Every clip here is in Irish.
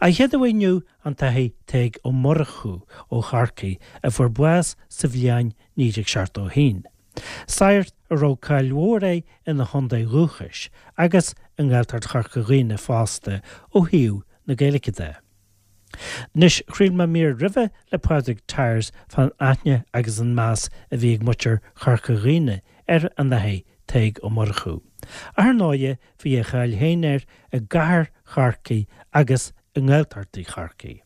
An chéad uaidh inniu an tAthair Tadhg Ó Murchú ó Chorcaigh a fuair bás sa bhliain 1971. Sagart a raibh cáil mhór air ina chontae dhúchais agus i nGaeltacht Chorca Dhuibhne fosta ó thaobh na Gaeilge de. Anois, chraol mé mír roimhe le Pádraig Tyers fán aithne agus an meas a bhí ag muintir Chorca Dhuibhne ar an Athair Tadhg Ó Murchú. Ach ar ndóighe, bhí a cháil féin air i gcathair Chorcaí agus i nGaeltachtaí Chorcaí.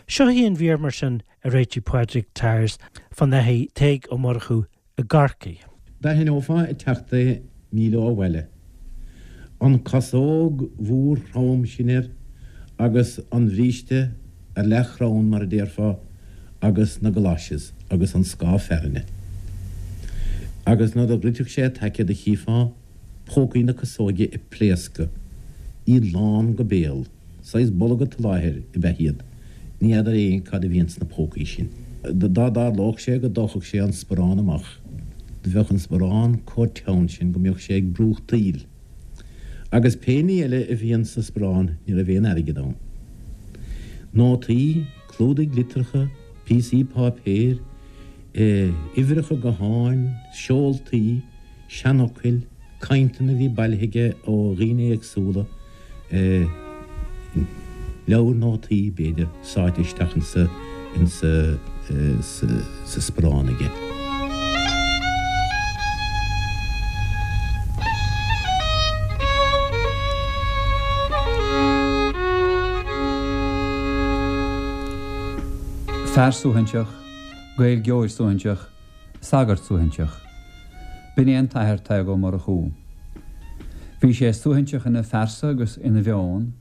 Seo í an mhír mar sin a réitigh Pádraig Tyers fán Athair Tadhg Ó Murchú i gCorcaigh. D'aithneofá ag teacht é míle ó bhaile. An casóg mhór throm sin air agus an bhríste ar leathchrann mar a déarfá agus na galoshes agus an scáth fearthainne. Agus nuair a dhruidfeadh sé a taice do chífeá pócaí na casóige ag pléascadh, iad lán go béal. Saghas bolga tsoláthair ab ea iad. Ní fheadar éinne cad a bhí ins na pócaí sin. Dá dtarlódh sé go dtógfadh sé an sparán amach, do bheadh an sparán comh teann sin go mbeadh sé ag brúchtaíl. Agus pé ní eile a bhí ins an sparán ní raibh aon airgead ann. Nótaí, clúdaigh litreacha, píosaí páipéir, uimhreacha gutháin, seoltaí, seanfhocail, cainteanna a bhí bailithe aige ó dhaoine éagsúla, leabhar nótaí, b'fhéidir, sáite isteach insa, insa, sa sparán aige. Fear suaithinseach, Gaeilgeoir suaithinseach, sagart suaithinseach. B'in é an tAthair Tadhg Ó Murchú. Bhí sé suaithinseach ina phearsa agus ina mheon,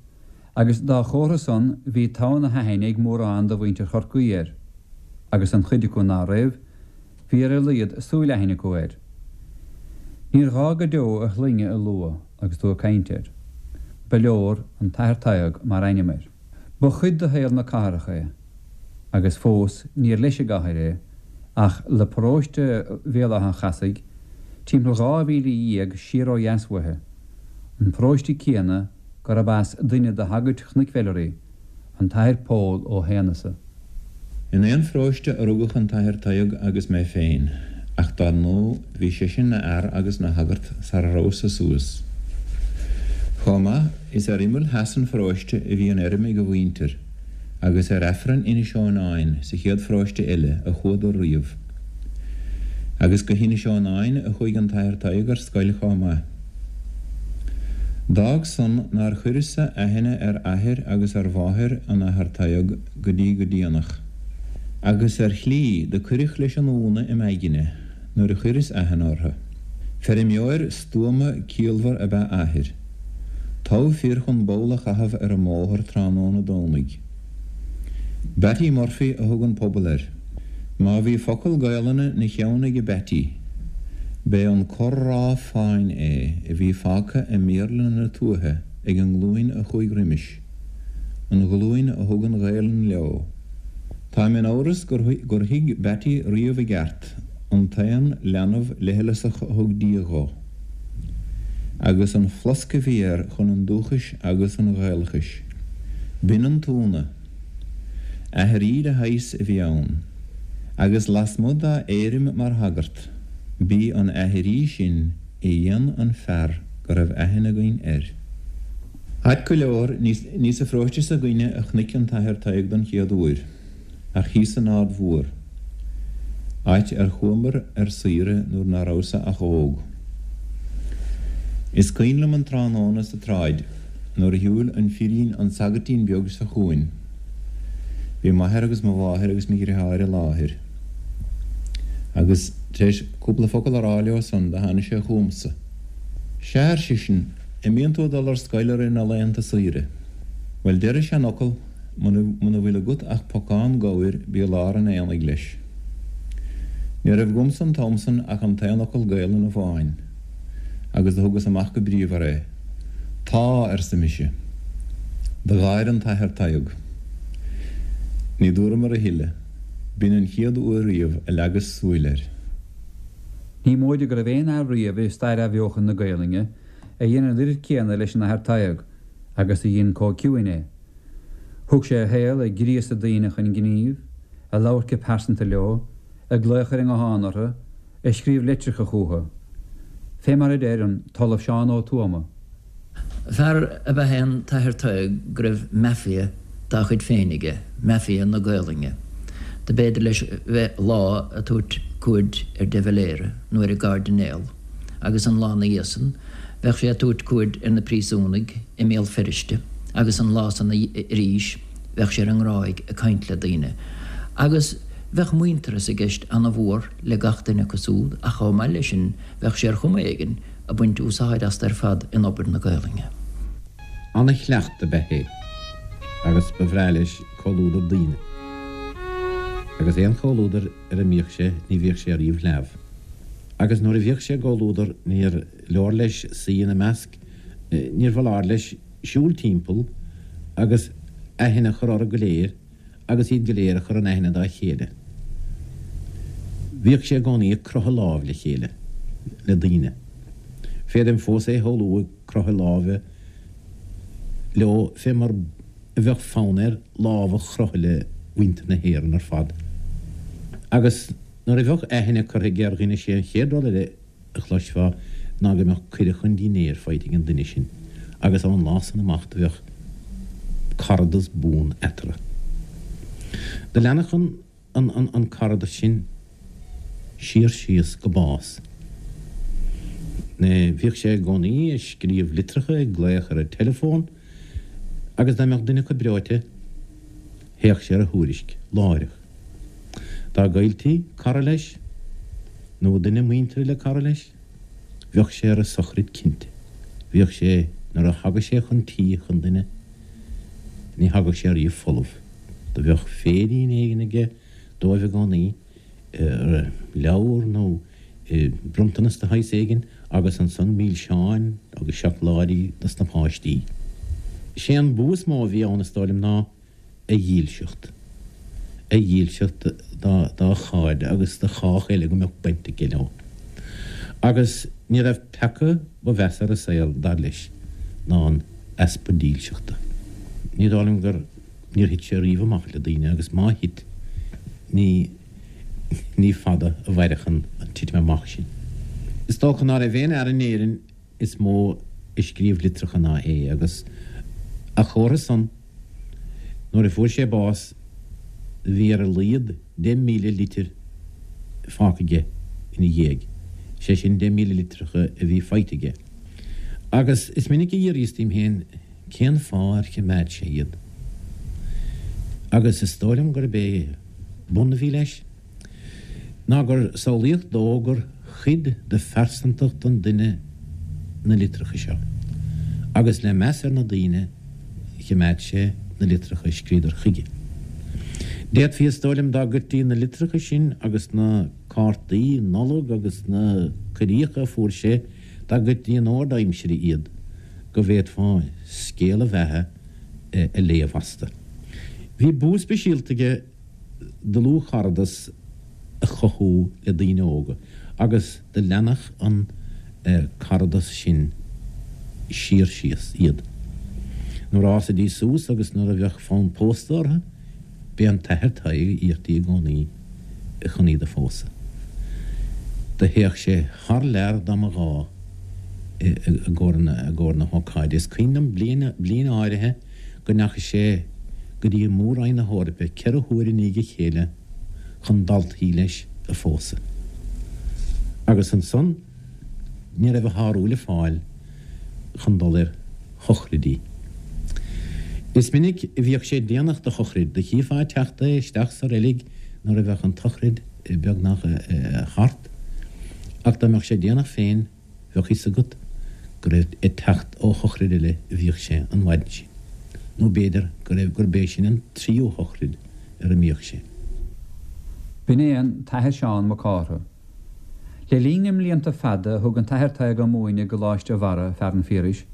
agus dá chomhartha san bhí togha na haithne ag mórán de mhuintir Chorcaí air, agus an chuid acu ná raibh, bhí ar a laghad súil aithne acu air. Níor ghá go deo a shloinne a lua agus tú ag caint air. Ba leor an tAthair Tadhg mar ainm air. Ba chuid de shaol na cathrach é, agus fós níor leis an gcathair é, ach le paróiste Bhéal Átha an Chasaigh, timpeall 12 mhíle siar ó dheas uaithe, an paróiste céanna gurb as duine de shagairt Chnoic Mheilearaí, an tAthair Pól Ó hAonghusa. In aon pharóiste a rugadh an tAthair Tadhg agus mé féin, ach dar ndóigh bhí seisean 'na fhear agus 'na shagart sara rabhas-sa suas. Chomh maith, is ar imeall theas an pharóiste a bhí an fheirm ag a mhuintir, agus ar Aifreann Inis Eonáin sa chéad pharóiste eile a chuadar riamh. Agus go hInis Eonáin a chuaigh an tAthair Tadhg ar scoil chomh maith. D'fhág san nár chuireas-sa aithne ar athair agus ar mháthair an Athar Tadhg go dtí go déanach. Agus ar shlí do cuireadh leis an iúnadh im aigne nuair a chuireas aithne orthu. Feirmeoir stuama ciallmhar ab ea athair. Togha fir chun ball a chaitheamh ar an mbóthar tráthnóna Domhnaigh. Batty Murphy a thug an pobal air. Má bhí focal Gaelainne 'na cheann aige Batty, b'é an corr-rá fáin é a bhí fágtha i mBéarla na tuaithe ag an nglúin a chuaigh roimis, an ghlúin a thug an Ghaelainn leo. Táim in amhras gur thuig Batty riamh i gceart an t-aon leanbh leithleasach a thug Dia dhó, agus an flosc a bhí air chun an dúchais agus an Ghaelachais. B'in an t-ionadh. Aithrí de shaghas a bhí ann, agus lasmuigh dá éirim mar shagart, b'í an aithrí sin a dhein an fear go raibh aithne againn air. Ait go leor, ní sa pharóiste s'againne a chonaic an tAthair Tadhg don chéad uair, ach thíos san Aird Mhór, áit ar chuamar ar saoire nuair ná rabhas-sa ach óg. Is cuimhin liom an tráthnóna sa tsráid nuair a shiúil an firín an sagairtín beag seo chugainn. Bhí m'athair agus mo mháthair agus mo dhriotháir i láthair. Agus tar éis cúpla focal a rá leo san do tháinig sé chugamsa. Sea, ar seisean, an mbíonn tú ag dul ar scoil i rith na laethanta saoire? Bhuel, deir an seanfhocal, muna bhfuil agat ach pocán gabhair bí i lár an aonaigh leis. Ní raibh agamsa an t-am san ach an t-aon fhocal Gaelainne amháin, agus do thugas amach go bríomhar é. Tá, arsa mise. Do gháir an tAthair Tadhg. Ní dúramar a thuilleadh. B'in an chéad uair riamh a leagas súil air. Ní móide go raibh aon fhear riamh i stair athbheochan na Gaelainne a dhein an oiread céanna leis an Athair Tadhg agus a dhein chomh ciúin é. Thug sé a shaol ag gríosadh daoine chun gnímh, ag labhairt go pearsanta leo, ag glaoch ar an nguthán orthu, ag scríobh litreacha chucu. Fé mar a deir an tOllamh Seán Ó Tuama. Fear ab ea é an tAthair Tadhg go raibh mafia dá chuid féin aige, mafia na Gaolainne. Do b'fhéidir leis bheith lá a' tabhairt cuaird ar de Valera nó ar an gCairdinéal agus an lá 'na dhiaidh san bheadh sé a' tabhairt cuaird ar na príosúnaigh i mBéal Feirste agus an lá san arís bheadh sé ar an nGráig ag caint le daoine agus bheadh muintearas i gceist ana-mhór le gach duine acu súd ach chomh maith leis sin bheadh sé ar chuma éigin ag baint úsáid astu ar fad in obair na Gaolainne. Ana-chleacht ab ea é agus ba bhreá leis comhluadar daoine. Agus aon chomhluadar ar a mbíodh sé ní bhíodh sé ariamh leamh. Agus nuair a bhíodh sé i gcomhluadar níor leor leis suí ina measc, níor bhfoláir leis siúl timpeall agus aithne a chur orthu go léir agus iad go léir a chur in aithne dá chéile. Bhíodh sé i gcónaí ag croitheadh lámh le chéile, le daoine. Féadaim fós é a shamhlú ag croitheadh láimhe leo fé mar a bheadh fonn air lámh a chroitheadh le muintir na hÉireann ar fad. Agus nuair a bheadh aithne curtha aige ar dhuine sé an chéad rud eile a chloisfeá ná go mbeadh cuireadh chun dinnéir faighte ag an duine sin agus ón lá san amach do bheadh caradas buan eatarthu. Do leanfadh an an an caradas sin siar síos go bás. Bhíodh sé i gcónaí ag scríobh litreacha, ag glaoch ar an teileafón agus dá mbeadh duine acu breoite théadh sé ar a thuairisc láithreach. Dá gcailltí cara leis, nó duine muinteartha le cara leis, bheadh sé ar a sochraid cinnte. Bhíodh sé, nuair a thagadh sé chun tí chun duine, ní thagadh sé ariamh folamh. Do bheadh féirín éigin aige dóibh i gcónaí, leabhar nó bronntanas de shaghas éigin, agus ansan milseáin agus seacláidí dos na páistí. Sé an bua is mó a bhí ann, is dóigh liom, ná a dhílseacht, a dhílseacht dá chairde agus do chách eile go mbeadh baint aige leo. Agus ní raibh peaca ba mheasa ar an saol, dar leis, ná an easpa dílseachta. Ní dóigh liom gur, níor thit sé riamh amach le daoine agus má thit, ní, ní fada a mhairfeadh an titim amach sin. Is dócha ná raibh aon fhear in Éirinn is mó a scríobh litreacha ná é agus a chomhartha san, Nuair a fuair sé bás bhí ar a laghad 10,000 litir fágtha aige ina dhiaidh, sé sin 10,000 litreacha a bhí faighte aige. Agus is minic a d'fhiafraíos díom féin cén fáth ar choimeád sé iad. Agus is dóigh liom gurb é bun a bhí leis. ná gur samhlaíodh dó gur chuid de phearsantacht an duine na litreacha seo, agus le meas ar na daoine choimeád sé na litreacha a scríodar chuige. D'fhéadfaí, is dóigh liom, dá gcuirtí na litreacha sin agus na cártaí Nollag agus na cuiríocha a fuair sé, dá gcuirtí in ord aimsire iad, go bhféadfá scéal a bheatha a léamh astu. Bhí bua speisialta aige dlúthcharadas a chothú le daoine óga agus do leanfadh an caradas sin siar síos iad. Nuair a fhásaidís suas agus nuair a bheadh fonn pósta orthu, b'é an tAthair Tadhg a iarrtaí i gcónaí chun iad a phósadh. Do théadh sé thar lear dá mba ghá i gcomhair na hócáide. Is cuimhin liom bliain bliain áirithe go ndeachaigh sé go dtí Mór-Roinn na hEorpa 4 huaire i ndiaidh a chéile chun daltaí leis a phósadh. Agus ansan ní raibh a shárú le fáil chun dul ar shochraidí. Is minic a bhíodh sé déanach do shochraid, do chífeá ag teacht é isteach sa reilig nuair a bheadh an tsochraid beagnach thart, ach dá mbeadh sé déanach féin, Bheadh fhios agat gur ag teacht ó shochraid eile a bhíodh sé an mhaidin sin, nó b'fhéidir go raibh gurb é sin an tríú shochraid ar a mbíodh sé. B'in é an tAthair Seán Mac Cártha. Le linn na mblianta fada a thug an tAthair Tadhg ag múineadh i gColáiste Bharra, Fearann Phiarais,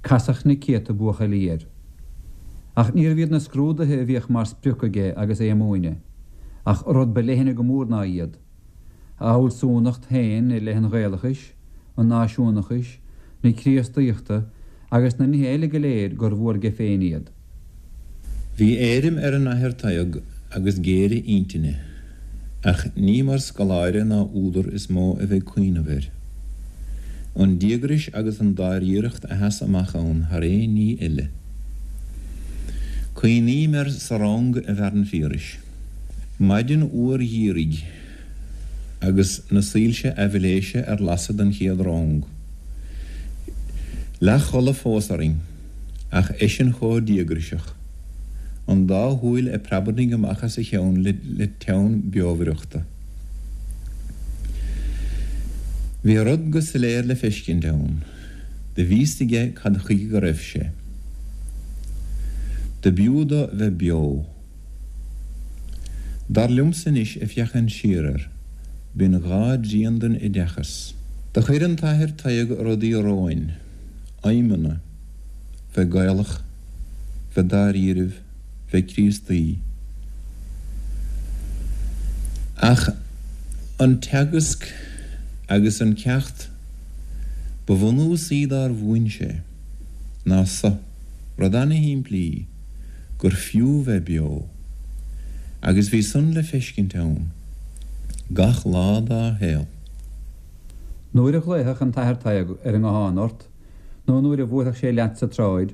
casadh na céadta buachaillí air. Ach níorbh iad na scrúduithe a bhíodh mar sprioc aige agus é ag múineadh, ach rud ba leithne go mór ná iad. A fhealsúnacht féin i leith an Ghaelachais, an náisiúnachais, na Críostaíochta agus na nithe eile go léir gur mhór aige féin iad. Bhí éirim ar an Athair Tadhg agus géire intinne, ach ní mar scoláire ná údar is mó a bheidh cuimhneamh air. An díograis agus an dáiríreacht a sheas amach ann thar aon ní eile. Cuimhním air sa rang i bhFearann Phiarais. Maidin fhuar gheimhridh agus na soilse aibhléise ar lasadh don chéad rang. Leathchodladh fós orainn, ach eisean chomh díograiseach, an dá shúil ag preabarnaigh amach as a cheann le teann beomhaireachta. Bhí rud go soiléir le feiscint ann. Do bhí 'fhios aige cad chuige go raibh sé. Do b'fhiú dó bheith beo. Dar liomsa anois ag féachaint siar air, b'in dhá dtrian den oideachas. Do chuir an tAthair Tadhg rudaí romhainn, aidhmeanna, bheith Gaelach, bheith dáiríribh, bheith Críostaí. Ach an teagasc agus an ceacht ba bhunúsaí dár mhúin sé ná so, rud ana-shimplí, gur fiú bheith beo, agus bhí san le feiscint ann gach lá dá shaol. Nuair a ghlaofadh an tAthair Tadhg ar an nguthán ort, nó nuair a bhuailfeadh sé leat sa tsráid,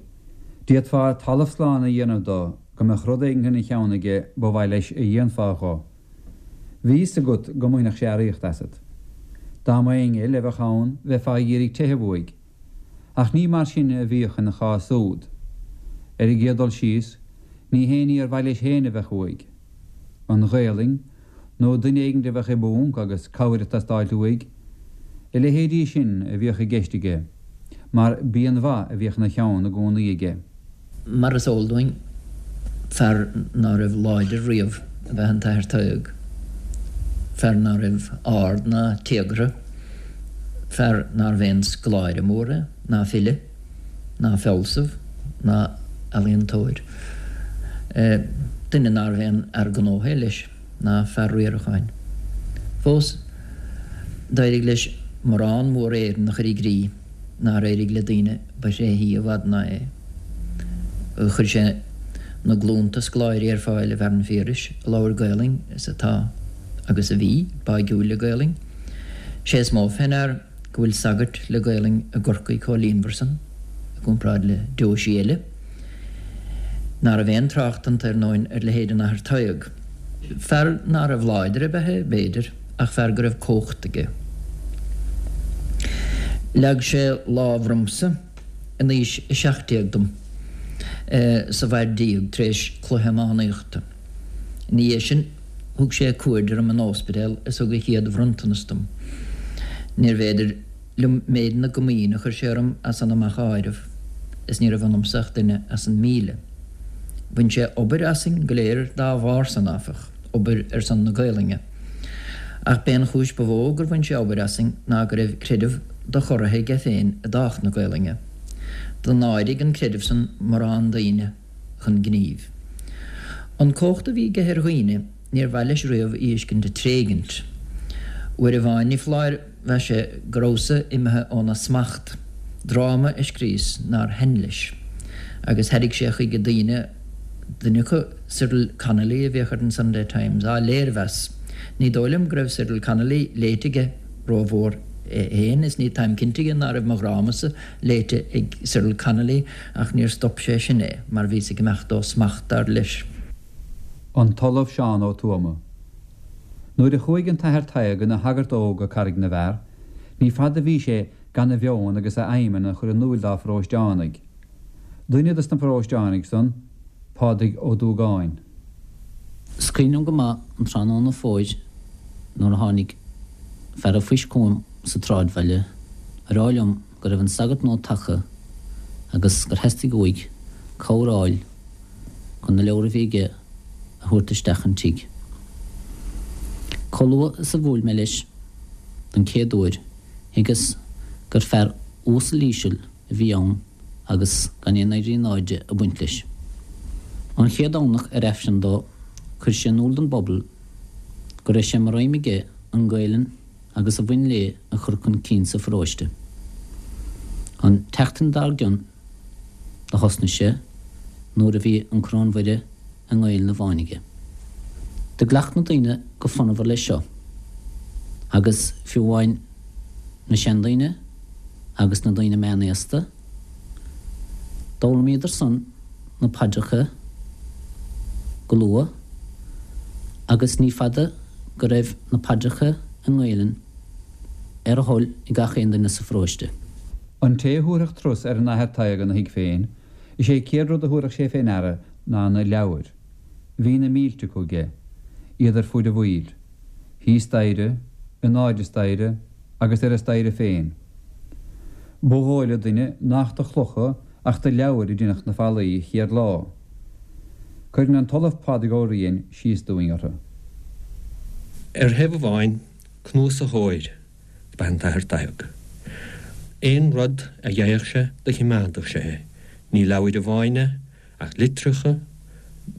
d'fhéadfá talamh slán a dhéanamh do go mbeadh rud éigin ina cheann aige ba mhaith leis a dhéanfá dho. Bhí fhios agat go mbainfeadh sé earraíocht asat. Dá mba éinne eile a bheadh ann bheifeá ag iarraidh teitheadh uaidh. Ach ní mar sin a bhíodh ina chás úd. Ar an gcéad dul síos, ní haon ní ar mhaith leis féin a bheadh uaidh. An Ghaelainn, nó duine éigin a bheadh i bponc agus cabhair ag teastáilt uaidh, a leithéidí sin a bhíodh i gceist aige, mar b'í an mhaith a bhíodh ina cheann i gcónaí aige. Mar is eol dúinn, fear ná raibh láidir riamh ab ea an tAthair Tadhg, fear ná raibh ard ná téagartha, fear nárbh aon scoláire mór é, ná file, ná fealsamh, ná ealaíontóir. Duine nárbh aon fhear gnótha é leis, ná fear riaracháin. Fós, d'éirigh leis morán mór Éireann a chur i gcrích nár éirigh le daoine ba thréithí i bhfad ná é. Chuir sé na glúnta scoláirí ar fáil i bhFearann Phiarais a labhair Gaolainn is atá, agus a bhí, báigiúil le Gaolainn. Sé is mó fé ndear go bhfuil sagairt le Gaolainn i gCorcaigh chomh líonmhar san, i gcomparáid le deoisí eile. Ná raibh aon trácht iontu, ar ndóin, ar leithéid an Athar Tadhg. Fear ná raibh láidir ab ea é, b'fhéidir, ach fear go raibh cumhacht aige. Leag sé lámh ormsa in aois a 17 dom sa Mhaigh tar éis cluiche iománaíochta. Ina dhiaidh sin thug sé cuaird orm in óispidéal is thug a chéad bhronntanas dom. Níorbh fhéidir liom méid na gcomaoine a chuir sé orm as san amach a áireamh, is ní raibh ionamsa ach duine as an 1,000. Bhain sé obair asainn go léir dá bharr san, áfach, obair ar son na Gaolainne. Ach b'é an chúis ba mhó gur bhain sé obair asainn ná go raibh creideamh dochorraithe aige féin i dtábhacht na Gaolainne. Do náirigh an creideamh san morán daoine chun gnímh. An cumhacht a bhí aige ar dhaoine níor mhaith leis riamh í fheiscint ag tréigint. Uair amháin ní foláir mheas sé go rabhas-sa imithe óna smacht, dráma a scríos nár thaitn leis, agus thairrig sé chuige daoine, duine acu, Cyril Connolly a bhíodh ar an Sunday Times, á léirmheas. Ní dóigh liom go raibh Cyril Connolly léite aige rómhór é féin is ní táim cinnte dhe ná raibh mo dhrámasa léite ag Cyril Connolly ach níor stop sé sin é mar bhíos ag imeacht ó smacht, dar leis. An tOllamh Seán Ó Tuama. Nuair a chuaigh an tAthair Tadhg ina shagart óg go Carraig na bhFear, ní fada a bhí sé gan a mheon agus a aidhmeanna a chur in úil dá pharóisteánaigh. Duine dos na paróisteánaigh san, Pádraig Ó Dúgáin. Is cuimhin liom go maith an tráthnóna fómhair nuair a tháinig fear a' phoist chugam sa tsráidbhaile a rá liom go raibh an sagart nua tagtha agus gur theastaigh uaidh cabhair a fháil chun na leabhra a bhí aige a thabhairt isteach an tigh. Chomh luath is a bhuail mé leis don chéad uair thuigeas gur fear uasal íseal a bhí ann agus gan aon éirí in airde ag baint leis. An chéad Domhnach ar Aifreann dó chuir sé in iúl don bpobal go raibh sé mar aidhm aige an Ghaelainn agus a bhain léi a chur chun cinn sa pharóiste. An tseachtain dár gcionn do thosnaigh sé. Nuair a bhí an Coróin Mhuire i nGaelainn amháin aige. Do ghlac na daoine go fonnmhar leis seo, agus fiú amháin na seandaoine agus na daoine meánaosta, d'fhoghlaimíodar san na paidreacha go luath, agus ní fada go raibh na paidreacha i nGaelainn ar a thoil ag gach aon duine sa pharóiste. An té a thabharfadh turas ar an Athair Tadhg ina thigh féin, Is é chéad rud a thabharfadh sé fé ndeara ná na leabhair. Bhí na mílte acu aige, iad ar fuaid a bhaill, thíos staighre, in airde staighre agus ar an staighre féin. Ba dhóigh le duine nach de chlocha ach de leabhair a deineadh na fallaí chéad lá. Cuireann an tOllamh Pádraig Ó Riain síos dúinn orthu. Ar thaobh amháin, cnuasaitheoir Ba ea an tAthair Tadhg. Aon rud a gheibheadh sé do chimeádadh sé é. Ní leabhair amháin é, ach litreacha,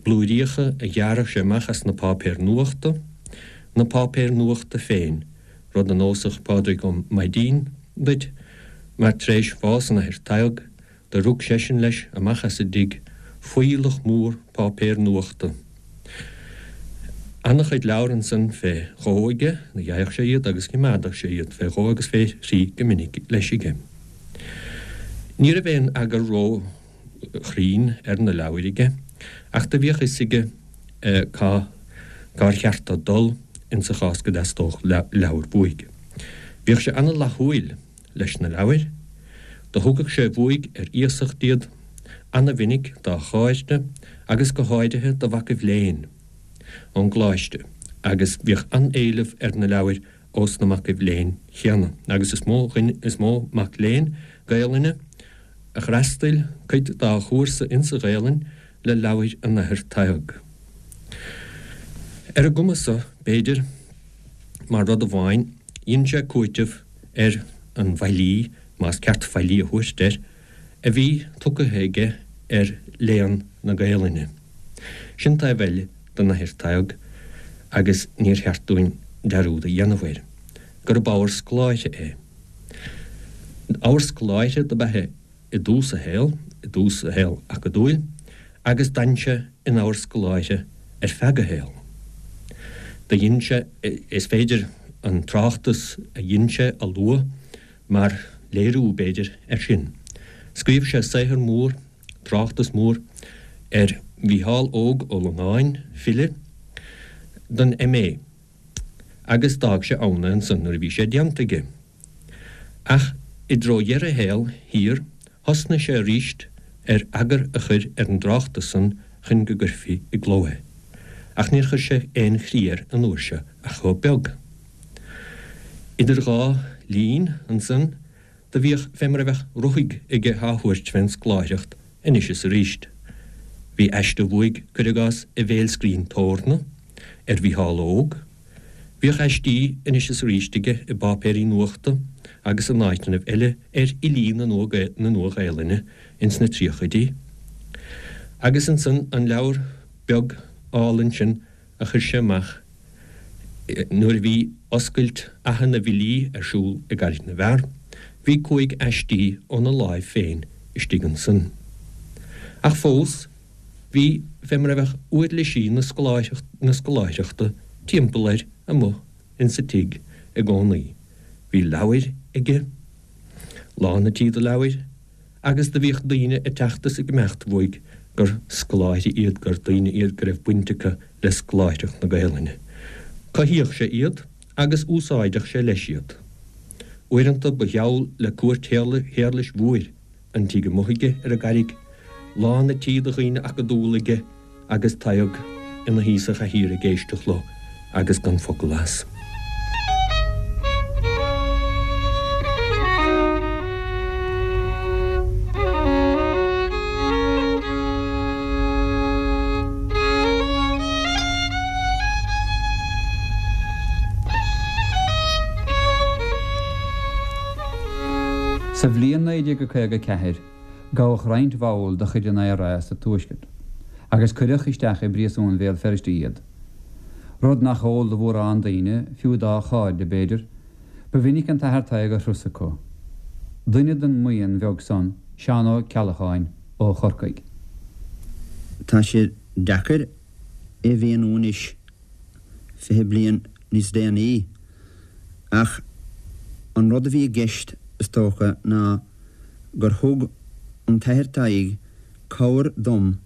blúiríocha a ghearradh sé amach as na páipéir nuachta, na páipéir nuachta féin, rud a neosfadh Pádraig Ó Maidín duit, mar tar éis bhás an Athair Tadhg, Do rug seisean leis amach as an dtigh fuílleach mór páipéir nuachta. Ana-chuid leabhar ansan fé dhó aige, do gheibheadh sé iad agus chimeádadh sé iad fé dhó agus fé thrí go minic leis aige. Ní raibh aon eagar ró-chruinn ar na leabhair aige, ach do bhíodh fhios aige cá cár cheart dó dul insa chás go dteastódh leabhar uaidh. Bhíodh sé ana-fhlaithiúil. leis na leabhair. Do thugadh sé uaidh ar iasacht iad ana-mhinic dá chairde agus go háirithe do mhacaibh léinn ón gcoláiste agus bhíodh an-éileamh ar na leabhair ós na macaibh léinn chéanna agus is mó is mó mac léinn Gaelainne a d'fhreastail cuid dá chúrsa insa Ghaelainn le leabhair an Athar Tadhg. Ar an gcuma so, b'fhéidir, mar rud amháin, dhein sé cúiteamh ar an bhfaillí, más ceart faillí a thabhairt air, a bhí tugtha aige ar léann na Gaelainne. Sin taobh eile den Athair Tadhg agus níor cheart dúinn dearúd a dhéanamh air, gurb ábhar scoláire é. Ábhar scoláire dob ea é i dtús a shaoil, i dtús a shaoil acadúil, agus d'fhan sé ina ábhar scoláire ar feadh a shaoil. Do dhein sé, is féidir an tráchtas a dhein sé a lua mar léiriú, b'fhéidir, air sin. Scríobh sé saothar mór, tráchtas mór, ar Mhícheál Óg Ó Longáin, file, don M.A. agus d'fhág sé ann é ansan nuair a bhí sé déanta aige. Ach i dtreo dheireadh a shaoil thiar thosnaigh sé aríst ar eagar a chur ar an dtráchtas san chun go gcuirfí i gcló é. Ach níor chuir sé aon chrí air an uair seo ach chomh beag. Idir dhá linn ansan do bhíodh fé mar a bheadh ruthaig aige á thabhairt fén scoláireacht anois is aríst. Bhí aiste uaidh, cuir i gcás, i bhFéilscrín Thórna, ar Mhícheál Óg. Bhíodh aistí anois is aríst aige i bpáipéirí nuachta agus in áiteannaibh eile ar fhilí na Nua-Ghaelainne ins na tríochaidí. Agus ansan an leabhar beag álainn sin a chuir sé amach nuair a bhí oscailt Fhaiche na bhFilí ar siúl i gCarraig na bhFear, bhí chúig aistí óna láimh féin istigh ansan. Ach fós, Bhí fé mar a bheadh uirlisí na scoláireachta timpeall air amuigh insa tigh i gcónaí. Bhí leabhair aige, lán an tí de leabhair, agus do bhíodh daoine ag teacht is ag imeacht uaidh gur scoláirí iad, gur daoine iad go raibh baint acu le scoláireacht na Gaelainne. Cothaíodh sé iad agus úsáideadh sé leis iad. Uaireanta ba gheall le cúirt Shéarlais Mhóir an tigh amuigh aige ar an gCarraig, lán an tí de dhaoine acadúla aige agus Tadhg ina shuí sa chathaoir ag éisteacht leo agus gan focal as. Sa bhliain 1954, gabhadh roinnt bhall de chuid an IRA sa Tuaisceart agus cuireadh isteach i bpríosún Bhéal Feirste iad. Rud nach eol do mhórán daoine, fiú dá chairde, b'fhéidir, ba mhinic an tAthair Tadhg ar thuras acu. Duine den mbuíon bheag san, Seán Ó Ceallacháin ó Chorcaigh. Tá sé deacair é a mhíniú anois, 20 bliain níos déanaí, ach an rud a bhí i gceist, is dócha, ná gur thug an tAthair Tadhg cabhair dom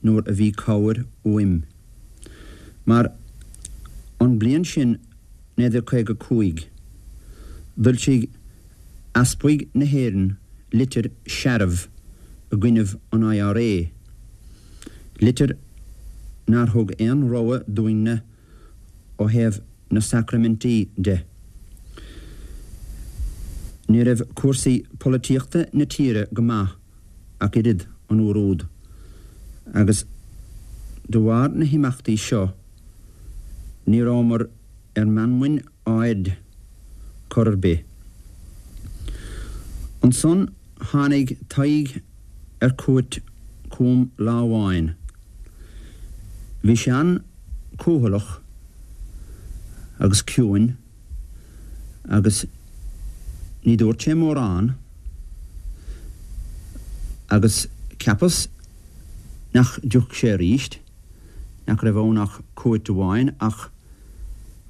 nuair a bhí cabhair uaim. Mar an bliain sin 1955, d'fhoilsigh Easpaig na hÉireann litir searbh i gcoinnibh an IRA, litir nár thug aon rogha dúinn-ne ó thaobh na sacraimintí de. Ní raibh cúrsaí polaitíochta na tíre go maith ach oiread an uair úd, agus de bharr na himeachtaí seo ní rabhamar ar meanmain ard chor ar bith. Ansan tháinig Tadhg ar cuairt chugam lá amháin. Bhí sé an-cúthaileach agus ciúin agus ní dúirt sé mórán agus cheapas nach dtiocfadh sé arís, nach raibh ann ach cuairt amháin ach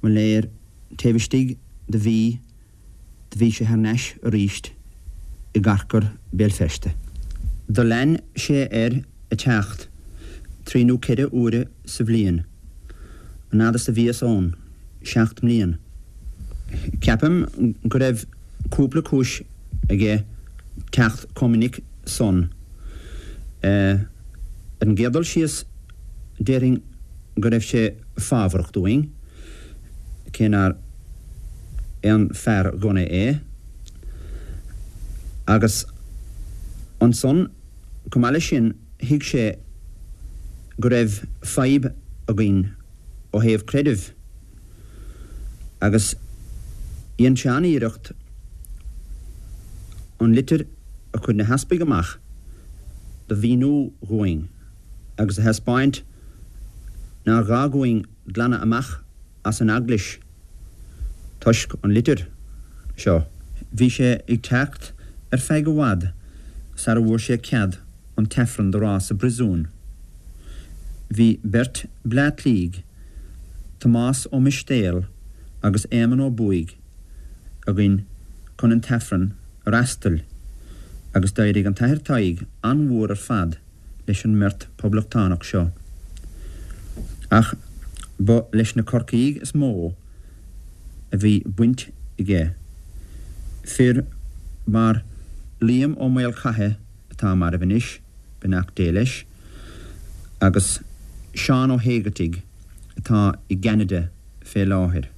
mo léir taobh istigh de mhí do bhí sé thar n-ais aríst i gcarcair Béal Feirste. Do lean sé air a teacht trí nó ceithre huaire sa bhliain, an fhad is a bhíos ann, 7 mblian. Ceapaim go raibh cúpla cúis aige teacht chomh minic san. Ar an gcéad dul síos déarfainn go raibh sé fábharach dúinn, cé nár aon fear gunna é, agus ansan, chomh maith leis sin, thuig sé go raibh fadhb againn ó thaobh creidimh, agus dhein sé an-iarracht an litir a chuir na heaspaig amach do mhíniú dhúinn. agus a thaispeáint nár ghá dhúinn glanadh amach as an Eaglais toisc an litir seo. Bhí sé ag teacht ar feadh i bhfad sara bhfuair sé cead an tAifreann do rá sa bpriosún. Bhí beirt Bleá Cliaigh, Tomás Ó Mistéil agus Éamonn Ó Buaigh, againn chun an tAifreann a fhreastail agus d'éirigh an tAthair Tadhg an-mhór ar fad leis an mbeirt Poblachtánach seo. Ach ba leis na Corcaígh is mó a bhí baint aige, fir mar Liam Ó Maolchatha atá marbh anois, beannacht Dé leis, agus Seán Ó hÉigeartaigh atá i gCeanada fé láthair.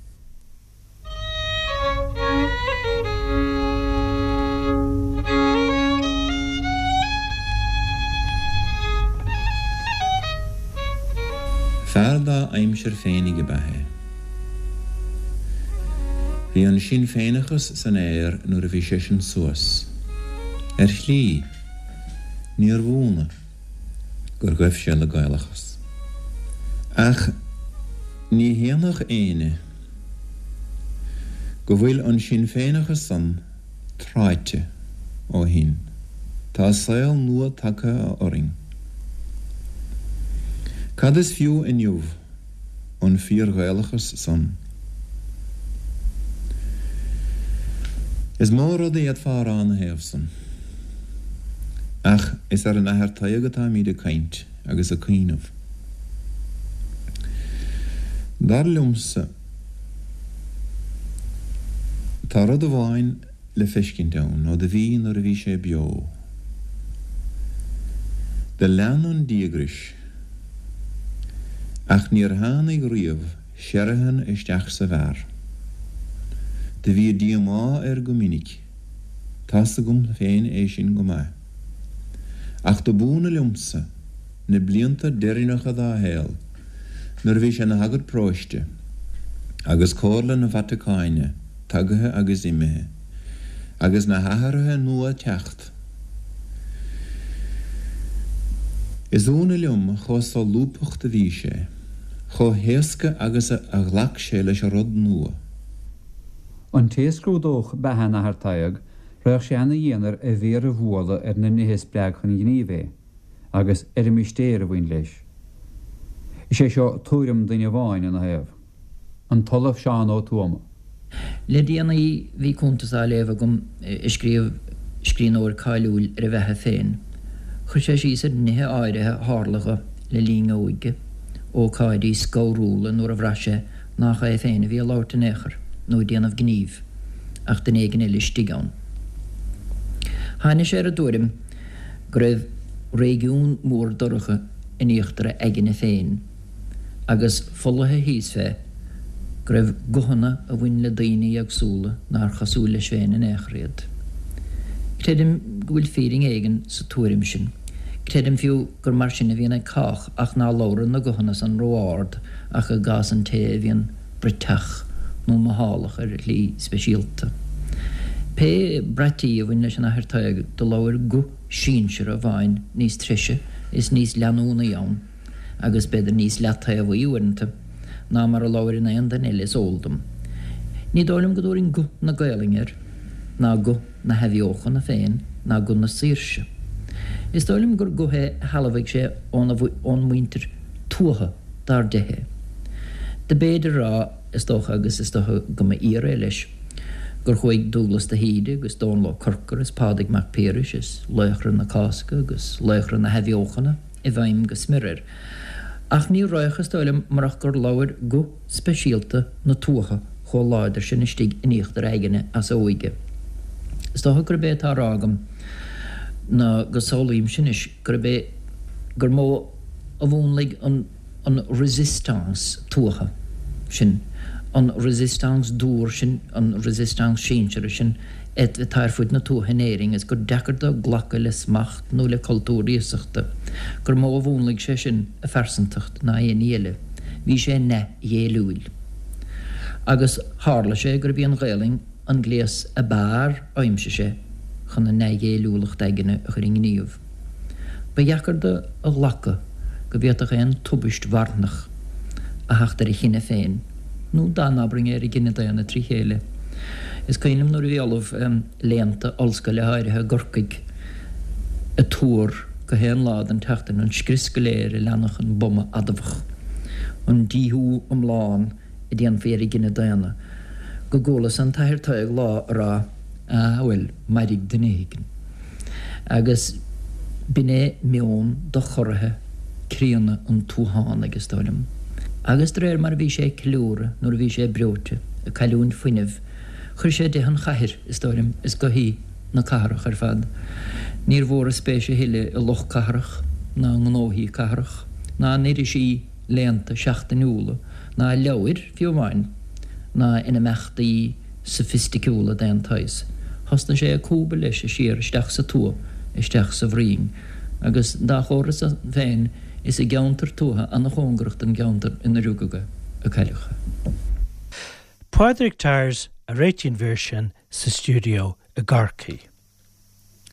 Fear dá aimsir féinig ab ea é. Bhí an Sinn Féineachas san aer nuair a bhí seisean suas. Ar shlí, níorbh ionadh gur ghaibh sé le Gaelachas. Ach ní shéanfadh éinne go bhfuil an Sinn Féineachas san tráite ó shin. Tá saol nua tagtha orainn. Cad is fiú inniu an fíor-Ghaelachas san? Is mó rud a d'fhéadfá a rá ina thaobh san. Ach is ar an Athair Tadhg atáimíd ag caint agus ag cuimhneamh. Dar liomsa, tá rud amháin le feiscint ann ó do bhí nuair a bhí sé beo. Do lean an díograis, ach níor tháinig riamh searthan isteach sa bhfear. Do bhí díomá air go minic. Tá's agam féin é sin go maith. Ach do b'ionadh liomsa, na blianta deireanacha dá shaol, nuair a bhí sé ina shagart paróiste, agus comhairle na Vatacáine tagaithe agus imithe, agus na hathruithe nua ag teacht. Is ionadh liom chomh solúbtha do bhí sé, chomh héasca agus a ghlac sé leis an rud nua. An té a scrúdódh beatha an Athar Tadhg, raghadh sé ana-dhian air a mhéar a bhualadh ar na nithe a spreag chun gnímh é. agus ar an mistéir a bhain leis. Is é seo tuairim duine amháin ina thaobh, an tOllamh Seán Ó Tuama. Le déanaí bhí cuntas á léamh agam a scríobh scríbhneoir cáiliúil ar a bheatha féin. Chuir sé síos ar nithe áirithe a tharla dho le linn a óige, ócáidí scanrúla nuair a bhraith sé nach é féin a bhí ag labhairt in aon chor nó ag déanamh gnímh, ach duine éigin eile istigh ann. Tháinig sé ar an dtuairim go raibh réigiún mór dorcha in íochtar a aigne féin, agus folaithe thíos fé, go raibh guthanna a bhain le daoine éagsúla nár chosúil leis féin in aon chor iad. Creidim go bhfuil fírinne éigin sa tuairim sin. Creidim fiú gur mar sin a bhíonn ag cách ach ná labhrann na guthanna san ró-ard ach i gcás an té a bhíonn bruiteach nó mothálach ar shlí speisialta. Pé braití a bhain leis an Athair Tadhg do labhair guth sinseartha amháin níos treise is níos leanúnaí ann, agus b'fhéidir níos leataobhaí uaireanta, ná mar a labhair in aon duine eile is eol dom. Ní dóigh liom go dtabharfainn guth na Gaelainne air, ná guth na hathbheochana féin, ná guth na saoirse. Is dóigh liom gur guth é a shealbhaigh sé óna ón muintir tuaithe dar de é. Do b'fhéidir a rá, is dócha, agus is dócha go mba fhíor é leis, gur chuaigh Dúglas de hÍde agus Dónall Ó Corcora is Pádraig Mac Piarais is laochra na Cásca agus laochra na hathbheochana i bhfeidhm go smior air. Ach ní raghadh, is dóigh liom, murach gur labhair guth speisialta na tuaithe chomh láidir sin istigh in íochtar a aigne as a óige. Is dócha gurb é atá á rá agam ná go samhlaímse anois gurb é gur mó a mhúnlaigh an an résistance tuaithe sin, an résistance dúr sin, an résistance sinseartha sin atá ar fud na tuaithe in Éirinn is gur deacair dó glacadh le smacht nó le cultúr iasachta, gur mó a mhúnlaigh sé sin a phearsantacht ná aon ní eile. Bhí sé neamhghéilliúil. Agus tharla sé gurb í an Ghaelainn an gléas ab fhearr a aimsigh sé chun a neamhghéilliúlacht aigne a chur i ngníomh. Ba dheacair dó a ghlacadh go bhféadfadh aon tubaist mharthanach a theacht ar a chine féin, nó dá n-abrainn é ar an gcine daonna trí chéile. Is cuimhin liom nuair a bhí ollamh léannta ollscoile áirithe i gCorcaigh ag tuar go haon lá den tseachtain an scrios go léir a leanfadh an buama adamhach, an díothú iomlán a déanfaí ar an gcine daonna, go gcualas an tAthair Tadhg lá a rá, Ah, bhuel, mairfidh duine éigin. Agus b'in é meon dochorraithe críonna an tuathánaigh, is dóigh liom. Agus de réir mar a bhí sé ag ceiliúradh nuair a bhí sé breoite, ag cailliúint fuinnimh, chuir sé de an chathair, is dóigh liom, is gothaí na cathrach ar fad. Níor mhór a spéis a thuilleadh i lucht cathrach, ná i ngnóthaí cathrach, ná in irisí léannta seachtainiúla, ná i leabhair, fiú amháin, ná in imeachtaí sofaisticiúla d'aon tsaghas. Thosnaigh sé ag cúbadh leis siar isteach sa tuath, isteach sa bhroinn. Agus dá chomhartha san féin, is i gceantar tuaithe ana-chóngarach don gceantar ina rugadh é a cailleadh é. Pádraig Tyers a réitigh an mhír sin sa stiúideo i gCorcaigh.